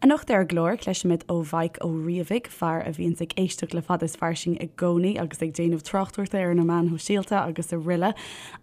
Anocht ar an gclár, cloisfimid ó Mhaidhc Ó Riabhaigh, fear a bhíonns ag éisteacht le Fada is Fairsing i gcónaí agus ag déanamh tráchtaireachta ar na meáin shóisialta agus aroile,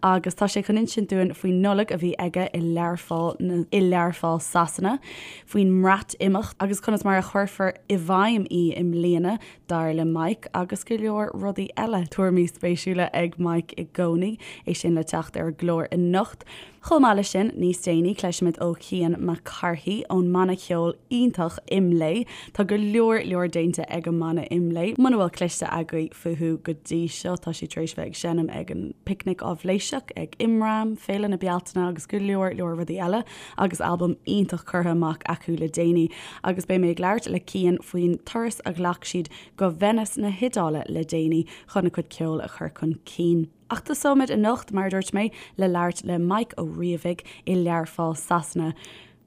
agus tá sé chun insint dúinn faoin Nollaig a bhí aige i Learpholl i Learpholl Sasana, faoin mBreatimeacht agus conas mar a chuirfear i bhfeidhm í i mbliana, dar le Mike, agus go leor rudaí eile. Tuairimí spéisiúla ag Mike i gcónaí, é sin le teacht ar an gclár anocht. Chomh maith leis sin, níos déanaí, cloisfimid ó Chian Mac Cárthaigh ón mbanna ceoil iontach IMLÉ. Tá go leor leor déanta ag an mbanna IMLÉ. Muna bhfuil cloiste agaibh fúthu go dtí seo, tá siad tar éis bheith ag seinm ag an Picnic Áibhléiseach, ag Imram, Féile na Bealtaine agus go leor leor rudaí eile agus albam iontach curtha amach acu le déanaí. Agus beidh mé ag labhairt le Cian faoin turas a ghlac siad go Venice na hIodáile le déanaí chun a gcuid ceoil a chur chun cinn. Ach tosóimid anocht, mar a dúirt mé, le labhairt le Mike Ó Riabhaigh i Learpholl, Sasana.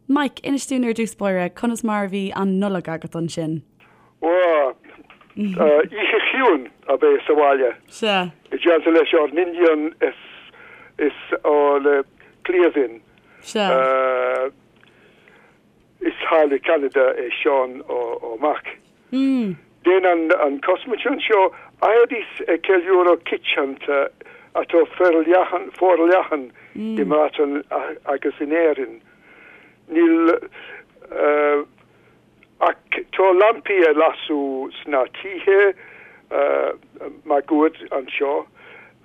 Mike, inis dúinn ar dtús báire, conas mar a bhí an Nollaig agat ansin? Bhuel, oíche chiúin ab ea sa bhaile. Sea. I dteannta leis ár n-iníon is is ár gcliamhain. Sea. Is thall i Ceanada é Seán ár mac. Déanann an cosmuintir anseo éirí ag ceiliúradh coitianta atá forleathan forleathan i mBreatain agus in Éirinn. Níl ach tá lampaí ag lasadh sna tithe máguaird anseo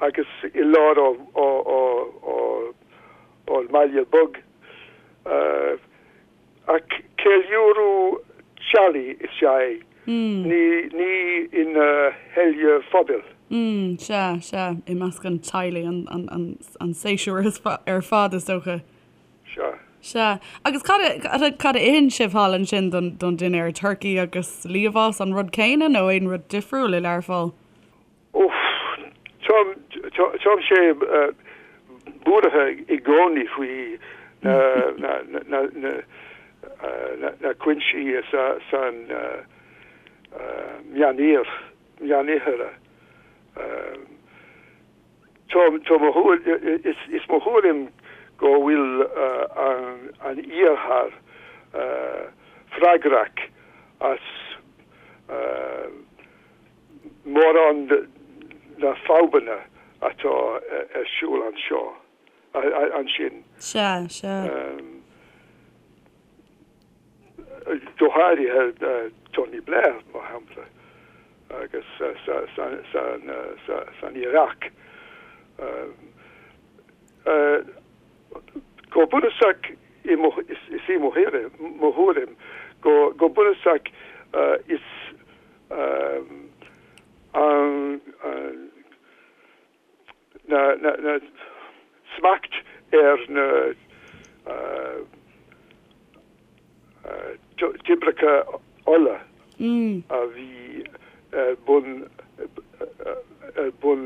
agus i lár ár mbaile beag. Ach ceiliúradh teaghlaigh is ea é, ní ina sheile phobail. Sea, sea, i measc an teaghlaigh, an séasúr ar fad, is dócha. Sea. Sea. Agus cad a, cad a itheann sibh thall ansin don, don dinnéar? Turcaí agus liamhás an rud céanna nó aon rud difriúil i Learpholl? Uff, táimse buartha i gcónaí faoi na cúinsí san Meánoirthear. Is mo thuairim go bhfuil an Iarthar freagrach as mórán de na fadhbanna atá ar siúl anseo, ansin. Sea, sea. Go háirithe Tony Blair, mar shampla, agus san Iaráic. Go bunúsach, is í mo thuairim, go bunúsach is an na smacht ar na toibreacha ola a bhí ar bun ar bun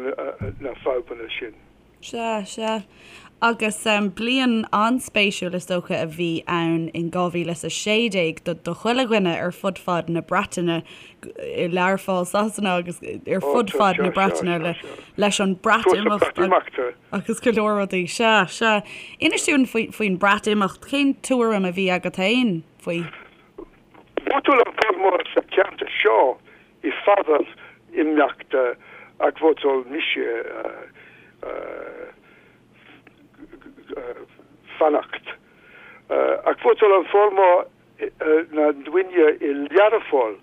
na fadhbanna sin. Sea, sea. Agus bliain an-spéisiúil is dócha a bhí ann in 2016 do do chuile dhuine ar fud fad na Breataine, i Learpholl Sasana agus ar fud fad na Breataine le leis an Breatimeacht agus go leor rudaí. Sea, sea. Inis dúinn faoin Breatimeacht, cén tuairim a bhí agat féin faoi? Vótáil an formhór sa cheantar seo i bhfabhar imeachta ach vótáil mise fanacht. Ach vótáil an formhór na ndaoine i Learpholl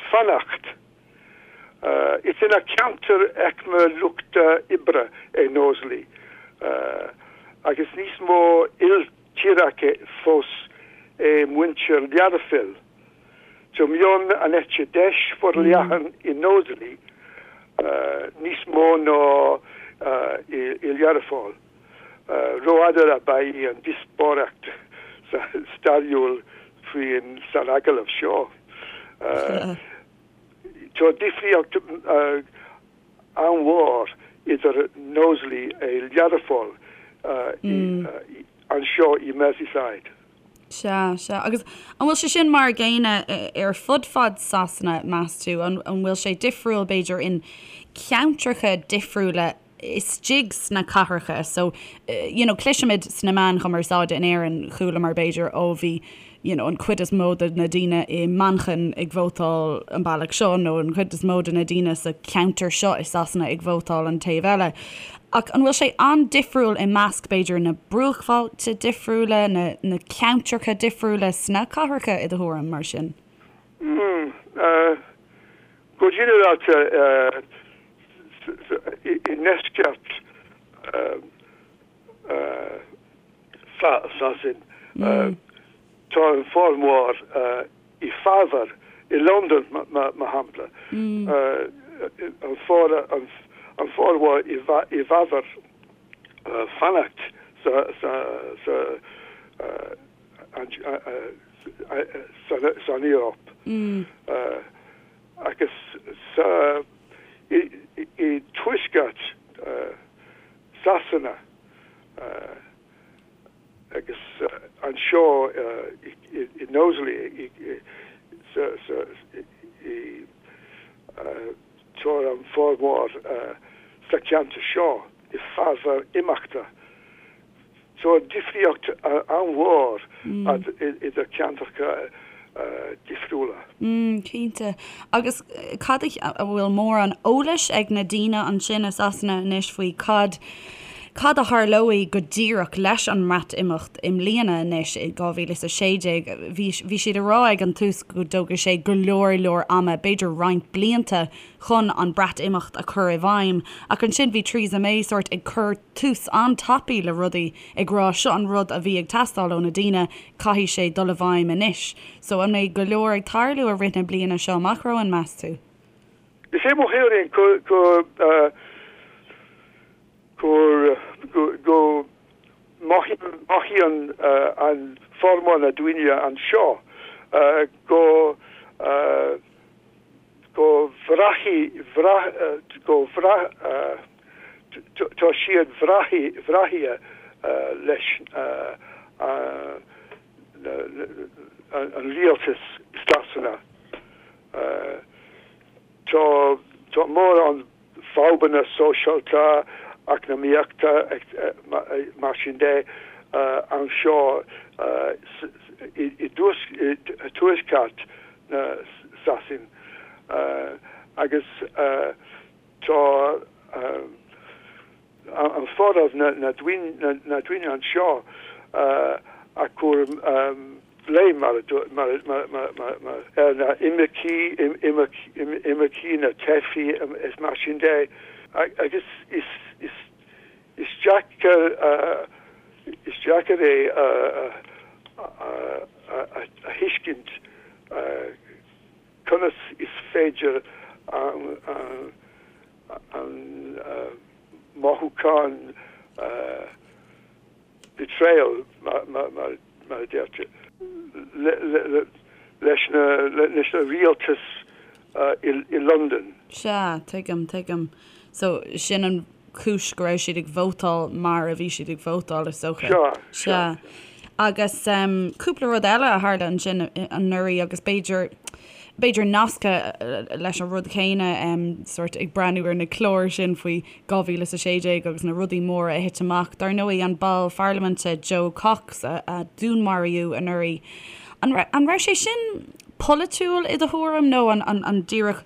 fanacht. Is ina ceantar aicme luchta oibre é Knowsley agus níos mó iltíreacha fós é muintir Learphoill. Tá meon an eite deis forleathan i Knowsley níos mó ná i Learpholl. Rófhada ab ea í an díospóireacht stairiúil faoin san agallamh seo. Tá difríocht an-mhór idir Knowsley a Learpholl anseo i Merseyside. Sea, sea. Agus an bhfuil sé sin mar a gcéanna ar fud fad Sasana, meas tú? An bhfuil sé difriúil, b'fhéidir, in ceantracha difriúla istigh sna cathracha? So, you know, cloisimid sna meáin chumarsáide in Éirinn, chualamar, b'fhéidir, ó bhí. you know, an chuid is mó de na daoine i Manchain ag vótáil an bealach seo nó an chuid is mó de na daoine sa cheantar seo i Sasana ag vótáil an taobh eile. Ach an bhfuil sé an-difriúil i measc, b'fhéidir, na bruachbhailte difriúla, na, na ceantracha difriúla sna cathracha, i do thuairim, mar sin? Mm, eh, go ginearálta, eh, i, i ndeisceart, eh, eh, Sasain, tá an formhór i bhfabhar i Londain, mar shampla, an formhór i bhfabhar fanacht san Eoraip agus i dtuaisceart Sasana. Agus anseo i Knowsley tá an formhór sa cheantar seo i bhfabhar imeachta. Tá difríocht an-mhór idir ceantracha difriúla. Cinnte. Agus cad a, an bhfuil mórán eolais ag na daoine ansin i Sasana anois faoi cad, cad a tharlóidh go díreach leis an mBreatimeacht i mbliana anois i 2016? Bhí, bhí siad ag rá ag an tús go dtógfaidh sé go leor leor ama, b'fhéidir roinnt blianta chun an Breatimeacht a chur i bhfeidhm. Ach ansin bhí Theresa May sórt ag cur tús an-tapaidh le rudaí, ag rá seo an rud a bhí ag teastáil ó na daoine, caithfidh sé dul i bhfeidhm anois. So an mbeidh go leor ag tarlú i rith na bliana seo amach romhainn, meas tú? Is é mo thuairim go go go mothaíonn an formhór na daoine anseo go go bhraithfidh go bhraith tá siad breaite leis an rialtas Sasana. Tá tá mórán fadhbanna sóisialta, eacnamaíochta mar sin de anseo i dtuaisceart na Sasain agus tá an formhór na ndaoine anseo ag cur blame mar ar na imircigh, imircigh, na teifigh is mar sin de agus is deacair is deacair é a thuiscint conas is féidir an mothúchán betrayal mar a deirtear leis na rialtas i Londain. Sea, tuigim, tuigim. So, sin an chúis go raibh siad ag vótáil mar a bhí siad ag vótáil, is dócha. Sea, sea. Sea. Agus cúpla rud eile a tharla ansin anuraidh agus b'fhéidir, b'fhéidir nasctha leis an rud chéanna, sórt ag breathnú ar na cláir sin faoi 2016 agus na rudaí móra a thit amach. Dar ndóigh, an ball pharlaiminte Jo Cox a dúnmaraíodh anuraidh. An raibh sé sin polaitiúil i do thuairim nó an díreach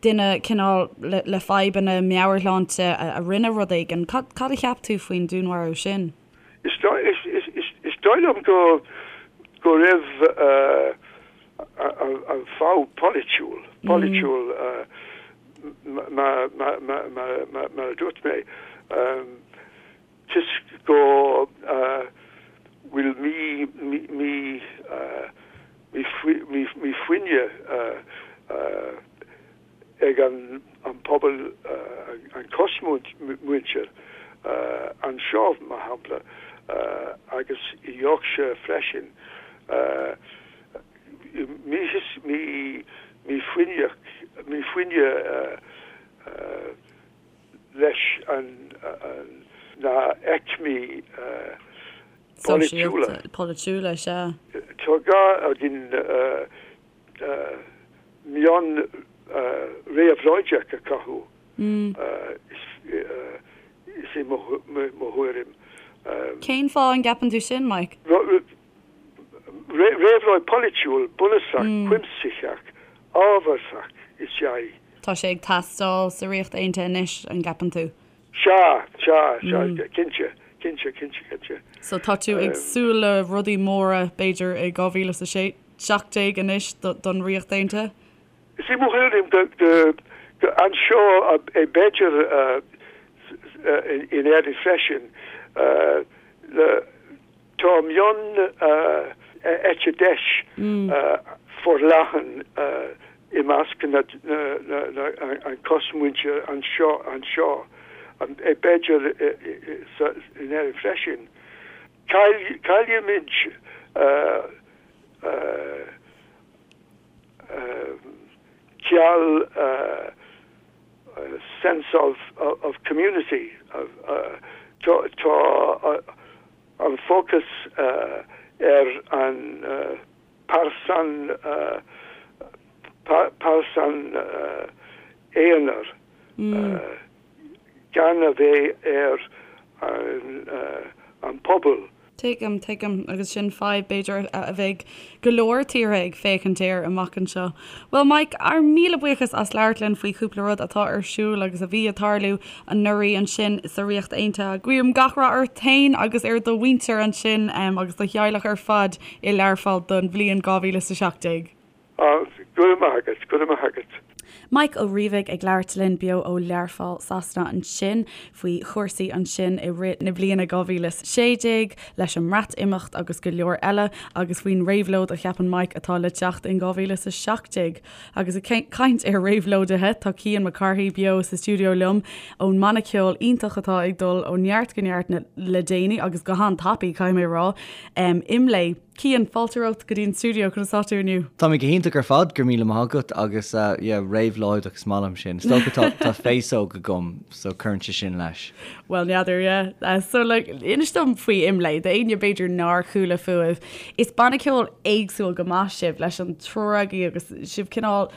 duine cineál le fadhbanna meabhairshláinte a rinne rud éigin? Cad a cheap tú faoin dúnmharú sin? Is dóigh liom go go raibh an fadhb polaitiúil, polaitiúil mar a dúirt mé, toisc go bhfuil mífhoighne ag an pobal, an chosmhuintir anseo, mar shampla, agus i Yorkshire freisin. Mífhoighne leis na haicmí polaitiúla. Polaitiúla, sea. Tá gá againn meon réabhlóideach a chothú, is é mo thuairim. Cén fáth an gceapann tú sin, Mike? Réabhlóid polaitiúil bunúsach cuimsitheach ábharthach is ea í. Tá sé ag teastáil sa Ríocht Aontaithe anois, an gceapann tú? Sea, sea, sea, cinnte, cinnte, cinnte, cinnte. So tá tú ag súil le rudaí móra, b'fhéidir, i 2017 anois don Ríocht Aontaithe? Is í mo thuairim go anseo b'fhéidir in Éirinn freisin tá meon eite deis forleathan i measc na an cosmhuintir anseo anseo b'fhéidir in Éirinn freisin. Caillimid ciall sense of of community tá an fócas ar an pearsan pearsan aonair gan a bheith ar an pobal. Tuigim, tuigim. Agus sin fadhb, b'fhéidir, a bheidh go leor tíortha ag féachaint air amach anseo. Bhuel, Mike, ár míle buíochas as labhairt linn faoi chúpla rud atá ar siúl agus a bhí ag tarlú anuraidh ansin sa Ríocht Aontaithe. Guím gach rath ort féin agus ar do mhuintir ansin agus do theaghlach ar fad i Learpholl don bhliain 2017. Go raibh maith agat, go raibh maith agat. Mike Ó Riabhaigh ag labhairt linn beo ó Learpholl, Sasana ansin faoi chúrsaí ansin i rith na bliana 2016 leis an mBreatimeacht agus go leor eile agus faoin réabhlóid a cheapann Mike atá le teacht in 2017. Agus ag caint ar réabhlóidithe tá Cian Mac Cárthaigh beo sa stiúideo liom ón mbanna ceoil iontach atá ag dul ó neart go neart le déanaí agus go han-tapaidh caithfidh mé a rá, IMLÉ. Cian, fáilte romhat go dtí an stiúideo, conas tá tú inniu? Tá mé go hiontach ar fad, go raibh míle maith agat agus yeah, réabhlóideach is maith liom sin. Is dócha tá tá féasóg agam so cuireann sé sin leis. Bhuel, n'fheadar, yeah. So like, inis dom faoi IMLÉ, d'éinne b'fhéidir nár chuala fúibh. Is banna ceoil éagsúil go maith sibh leis an triúr agaibh agus sibh cineál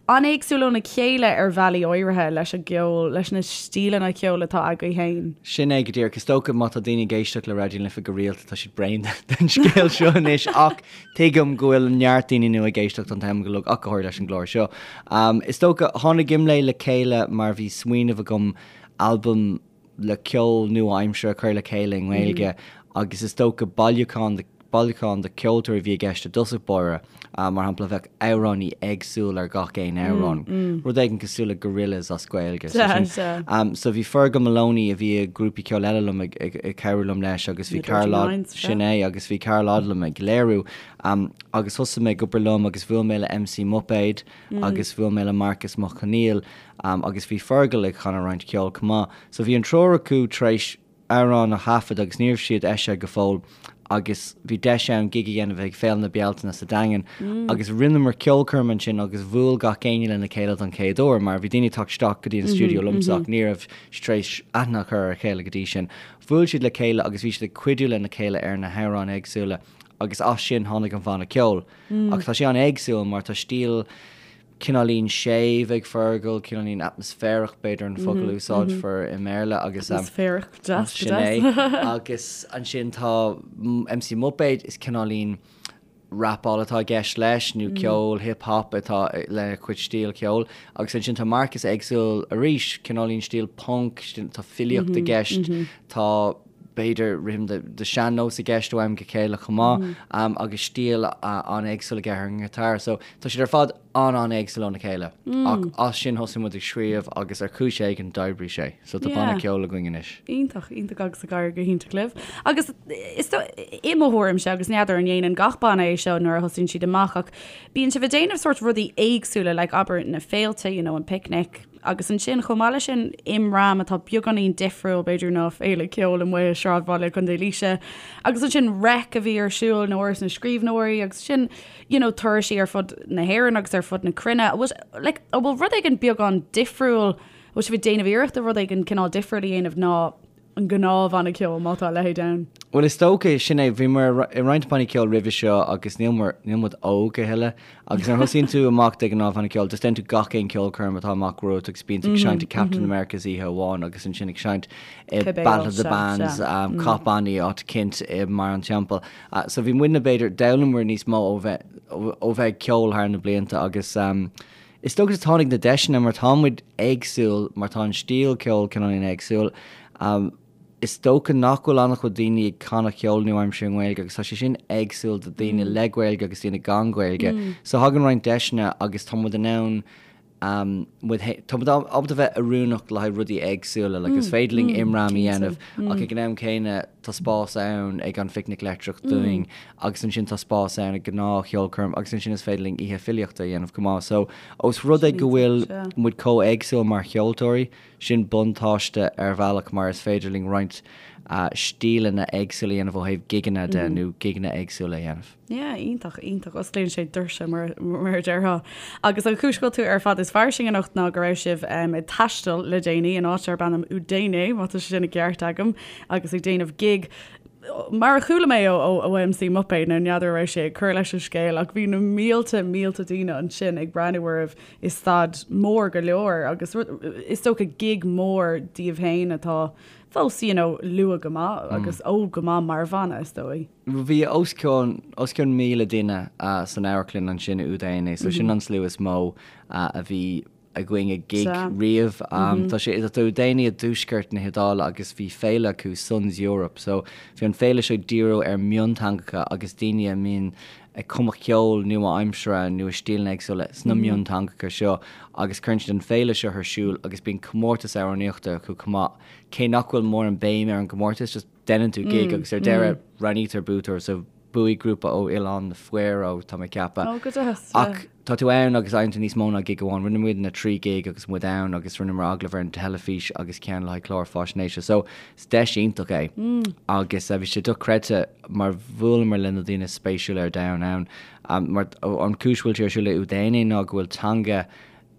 an-éagsúil óna chéile ar bhealaí áirithe leis an gceol, leis na stíleanna ceoil atá agaibh féin. Sin é go díreach. Is dócha má tá daoine ag éisteacht le Raidió na Life go rialta tá siad bréan den scéal seo anois ach tuigim go bhfuil neart daoine nua ag éisteacht an t-am go uilig ach go háirithe leis an gclár seo. Is dócha, tháinig IMLÉ le chéile mar bhí smaoineamh agam albam le ceol nua-aimseartha a chur le chéile i nGaeilge agus is dócha bailiúchán de bailiúchán de cheoltóirí a bhí i gceist i dtosach báire. Mar shampla, bheadh amhránaí éagsúil ar gach aon amhrán, rud éigin cosúil le Gorillaz as Gaeilge. So bhí Fergal Moloney a bhí i grúpaí ceoil eile liom ag cabhrú liom leis agus bhí Karl sin é agus bhí Karl Odlum ag léiriú agus thosaigh mé ag obair liom agus bhuail mé le MC Muipéad agus bhuail mé le Marcus Mac Conghail agus bhí Fergal ag chanadh roinnt ceoil chomh maith. So bhí an triúr acu tar éis amhráin a thaifead agus ní raibh siad eisithe go fóill agus bhí deis ann gig a dhéanamh ag Féile na Bealtaine sa Daingean agus rinneamar ceolchoirm ansin agus bhuail gach éinne lena chéile don chéad uair mar bhí daoine ag teacht isteach go dtí an stiúideo liomsa ach ní raibh siad tar éis aithne a chur ar a chéile go dtí sin. Bhuail siad le chéile agus bhí siad ag cuidiú lena chéile ar na hamhráin éagsúla agus as sin tháinig an bhanna ceoil. Ach tá sé an-éagsúil mar tá stíl cineáilín séimh ag Fergal, cineáilín atmaisféarach b'fhéidir an focal a úsáidfear i mBéarla agus Atmaisféarach, deas, sin é. Agus ansin tá MC Muipéad, is cineáilín rapáil atá i gceist leis nó ceol hip hop atá lena chuid stíl ceoil. Agus ansin tá Marcus éagsúil arís, cineáilín stíl punk, tá filíocht i gceist, tá b'fhéidir rithim de sean-nós i gceist ó am go chéile chomh maith agus stíl an-éagsúil aige ar an ngiotár. So tá siad ar fad an-an-éagsúil óna chéile. Ach as sin thosaigh muid ag scríobh agus ar chúis éigin d'oibrigh sé. So tá banna ceoil againn anois. Iontach, iontach agus ag éirí go hiontach libh. Agus is i mo thuairimse agus n'fheadar an ndéanann gach banna é seo nuair a thosaíonn siad amach ach bíonn sibh ag déanamh sórt rudaí éagsúla like abair na féilte, you know, an picnic, Agus ansin, chomh maith leis sin, Imram, atá beagáinín difriúil, b'fhéidir, ná féile ceoil amuigh i sráidbhaile Chontae Laoise. Agus ansin Reic a bhí ar siúl in Áras na Scríbhneoirí agus sin, you know, turaisí ar fud na hÉireann agus ar fud na cruinne. An bhfuil, like, an bhfuil rud éigin beagán difriúil, an bhfuil sibh ag déanamh iarrachta rud éigin cineál difriúil a dhéanamh ná an gnáthbhanna ceoil, má tá a leithéid ann? Bhuel, is dócha, sin é, bhíomar i roinnt bannaí ceoil roimhe seo agus níl muid, níl muid óg a thuilleadh agus nuair a thosaíonn tú amach de ghnáth banna ceoil, just déanann tú gach aon ceolchoirm atá amach romhat agus bíonn tú ag seinnt i Captain America's oíche amháin agus ansin ag seinnt i Battle of the Bands, Cath Bannaí, áit eicínt i mBarr an Teampaill. So bhí muidne b'fhéidir, d'fhoghlaim muid níos mó ó bheith, ó bheith ag ceol thar na blianta agus is dócha tháinig na deiseanna mar tá muid éagsúil, mar tá an stíl ceoil cineáilín éagsúil. Is dócha nach bhfuil an-chuid daoine ag canadh ceol nua-aimseartha i nGaeilge agus tá sé sin éagsúil do daoine le Gaeilge agus daoine gan Gaeilge. So thagann roinnt deiseanna agus tá muid in ann muid tá muid ábalta bheith oiriúnach le haghaidh rudaí éagsúla like is féidir linn imram a dhéanamh ach ag an am céanna tá spás ann ag an Phicnic Leictreach dúinn agus ansin tá spás ann ag gnáth-cheolchoirm agus ansin is féidir linn oíche filíochta a dhéanamh chomh maith. So ós rud é go bhfuil muid chomh éagsúil mar cheoltóirí, Sin buntáiste ar bhealach mar is féidir linn roinnt stíleanna éagsúla a dhéanamh ó thaobh gigeanna de nó gigeanna éagsúla a dhéanamh. Yeah, iontach, iontach. Osclaíonn sé doirse mar mar a déarfá. Agus an chúis go bhfuil tú ar Fad is Fairsing anocht ná go raibh sibh ag taisteal le déanaí in áit darb ainm Udine, má tá sé sin i gceart agam, agus ag déanamh gig mar a chuala mé ó ó MC Muipéad, nó n'fheadar an raibh sé ag cur leis an scéal ach bhí na mílte, mílte daoine ansin ag breathnú oraibh i staid mór go leor agus is dócha gig mór daoibh féin atá fós you know luath go maith agus óg go maith mar bhanna is dóigh. Bhí os cionn os cionn 1,000 duine san amharclann ansin i Udine so sin an slua is mó a bhí againn ag gig riamh. Tá sé tá Udine i dtuaisceart na hIodáile agus bhí féile acu Suns Europe so bhí an féile seo ag díriú ar mionteangacha agus daoine a mbíonn ag cumadh ceol nua-aimseartha nó i stíleanna éagsúla sna mionteangacha seo agus cuireann siad an féile seo ar siúl agus bíonn comórtas amhránaíochta acu chomh maith. Cé nach bhfuil mórán béim ar an gcomórtas, just deineann tú gig agus ar deireadh roghnaítear buaiteoir so bhuaigh grúpa ó Oileán na Faeró, tá mé ag ceapadh. Ó, go deas, yeah. Ach tá tú ann agus faigheann tú níos mó ná gig amháin. Rinne muidne 3 gig agus muid ann agus rinneamar agallamh ar an teilifís agus ceann le haghaidh clár faisnéise. So is deis iontach é agus bhí sé dochreidte mar bhuaileamar le na daoine is spéisiúla ar domhan ann. Mar an chúis bhfuil sé ar siúl i Udine ná go bhfuil teanga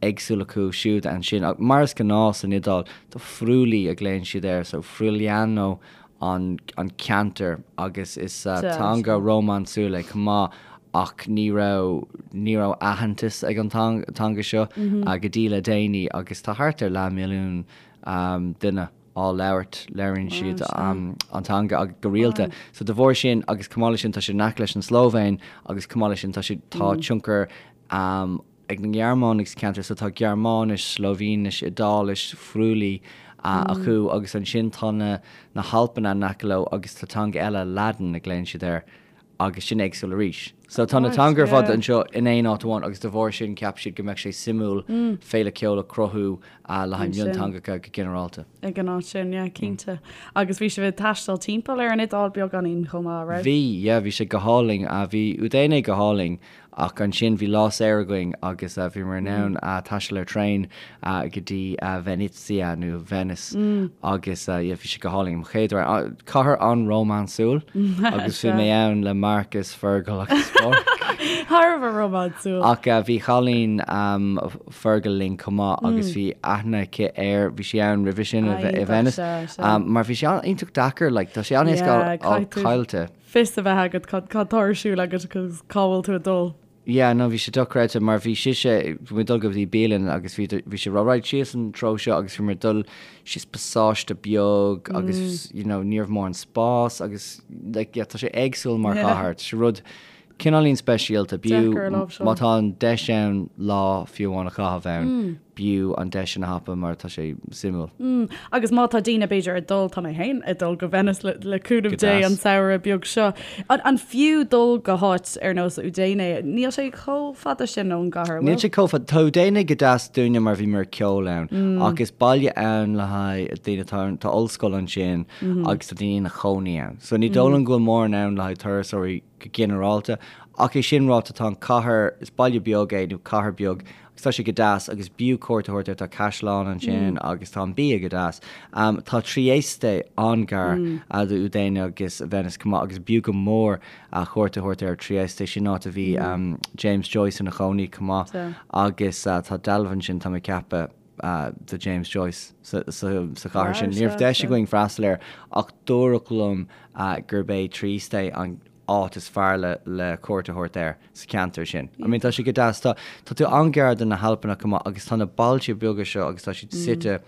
éagsúil acu siúd ansin. Ach mar is gnáth san Iodáil, tá Friuli a ghlaonn siad air, so Friuliano an an ceantar agus is teanga rómánsúil é chomh maith ach ní raibh ní raibh aitheantas ag an teanga seo go dtí le déanaí agus tá thart ar leathmhilliún duine á labhairt, labhraíonn siad an teanga go rialta. So de bharr sin agus chomh maith leis sin tá sé in aice leis an Slóivéin agus chomh maith leis sin tá sé tá tionchar ag na Gearmánaigh sa cheantar so tá Gearmáinis, Slóivéinis, Iodáilis, Friuli acu agus ansin tá na na hAlpanna in aice leo agus tá teanga eile, Ladin a ghlaonn siad air. agus sin éagsúil arís. So tá na teanga ar fad anseo in aon áit amháin agus de bharr sin cheap siad go mbeadh sé suimiúil féile ceoil a chruthú le haghaidh mionteangacha go ginearálta. Ag an áit sin, yeah, cinnte. Agus bhí sibh ag taisteal timpeall ar an Iodáil beagáinín chomh maith, raibh? Bhí, yeah, bhí sé go hálainn. Bhí Udine go hálainn Ach ansin bhí lá saor againn agus bhíomar in ann taisteal ar traein go dtí Venezia nó Venice agus yeah bhí sé go hálainn. Mo chéad uair. Cathair an-rómánsúil agus bhí mé ann le Marcus, Fergal agus Pádraig. Thar a bheith rómánsúil. Ach bhí cailín Fergal linn chomh maith agus bhí aithne aici air, bhí sí ann roimhe sin i Venice. Mar bhí sé iontach deacair, like tá sé an-éasca fáil caillte. fios a bheith agat cad tá ar siúl agat agus cá bhfuil tú ag dul. Yeah, no, bhí sé dochreidte mar bhí sise, bhí muid ag dul go dtí bialann agus bhí, bhí sí ag rá right síos an treo seo agus bhí muid ag dul síos pasáiste beag agus, you know, ní raibh mórán spás agus like, yeah, tá sé éagsúil mar chathair, tá sé rud cineáilín speisialta, b'fhiú Deacair a láimhseáil. má tá an deis ann lá fiú amháin a chaitheamh ann, b'fhiú an deis sin a thapú mar tá sé suimiúil. Mm, agus má tá daoine b'fhéidir ag dul, tá mé féin ag dul go Venice le, le cúnamh Dé an samhradh beag seo. An, an fiú dul go háit ar nós Udine? Níl sé chomh fada sin ón gcathair, Níl sé chomh fada. Tá Udine go deas dúinne mar bhíomar ag ceol ann, mm. ach is baile ann le haghaidh daoine, tá, tá ollscoil ansin mm -hmm. agus tá daoine ina chónaí ann. So ní dóigh liom go bhfuil mórán ann le haghaidh turasóirí go ginearálta. Ach é sin ráite, tá an cathair, is baile beag é nó cathair beag, agus tá sé go deas agus b'fhiú cuairt a thabhairt air, tá caisleán ansin agus tá an bia go deas. Tá Trieste an-ghar do Udine agus Venice chomh maith agus b'fhiú go mór cuairt a thabhairt ar Trieste, sin áit a bhí James Joyce ina chónaí chomh maith agus tá dealbh ansin, tá mé ag ceapadh. do James Joyce sa chathair sin. Ní raibh deis againn freastal air ach dúradh liom gurb é Trieste an áit is fearr le le cuairt a thabhairt air sa cheantar sin. I mean tá sé go deas. Tá tá tú an-ghar do na hAlpanna chomh maith agus tá na bailte beaga seo agus tá siad suite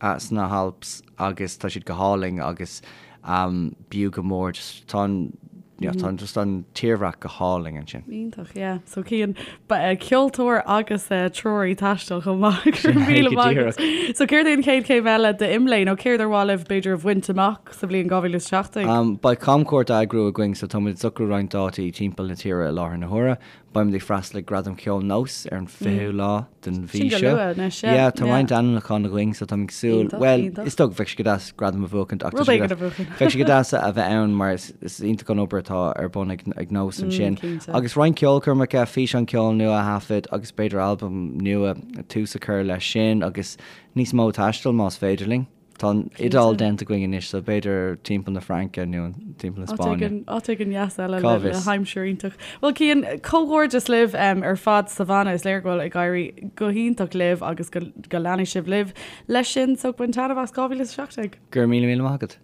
sna hAlps agus tá siad go hálainn agus b'fhiú go mór just tá an you know, tá just an tírdhreach go hálainn ansin. Iontach, yeah. So Cian, ceoltóir agus treoraí taistil chomh maith. Go raibh míle maith agat. So céard é an chéad chéim eile d'IMLÉ nó céard ar mhaith libh b'fhéidir a bhaint amach sa bhliain 2017? Beidh camchuairt á eagrú againn so táimid ag socrú roinnt dátaí timpeall na tíre i láthair na huaire. Beimid ag freastal ag Gradaim Cheoil Nós ar an 20ú lá den mhí Sin go seo. luath anois, yeah. Yeah, tá roinnt ainmniúchán againn so táim ag súil, Iontach, bhuel, iontach. is dócha bheadh sé go deas gradam a bhuachaint ach tá Rud sé go éigin a deas, bhuachan. bheadh sé go deas a bheith ann mar is, is iontach an obair atá ar bun ag, ag Nós ansin. Cinnte. Agus roinnt ceolchoirmeacha, físeán ceoil nua a thaifead agus b'fhéidir albam nua, tús a chur leis sin agus níos mó taistil más féidir linn. Tá an Iodáil déanta againn anois so b'fhéidir timpeall na Fraince nó timpeall na Spáinne. Áit éigin dheas eile le haimsir iontach. Bhuel Cian, comhghairdeas libh ar fad sa bhanna. Is léir go bhfuil ag éirí go hiontach libh agus go leanfaidh sibh libh leis sin so bain taitneamh as 2017. Go raibh míle míle maith agat.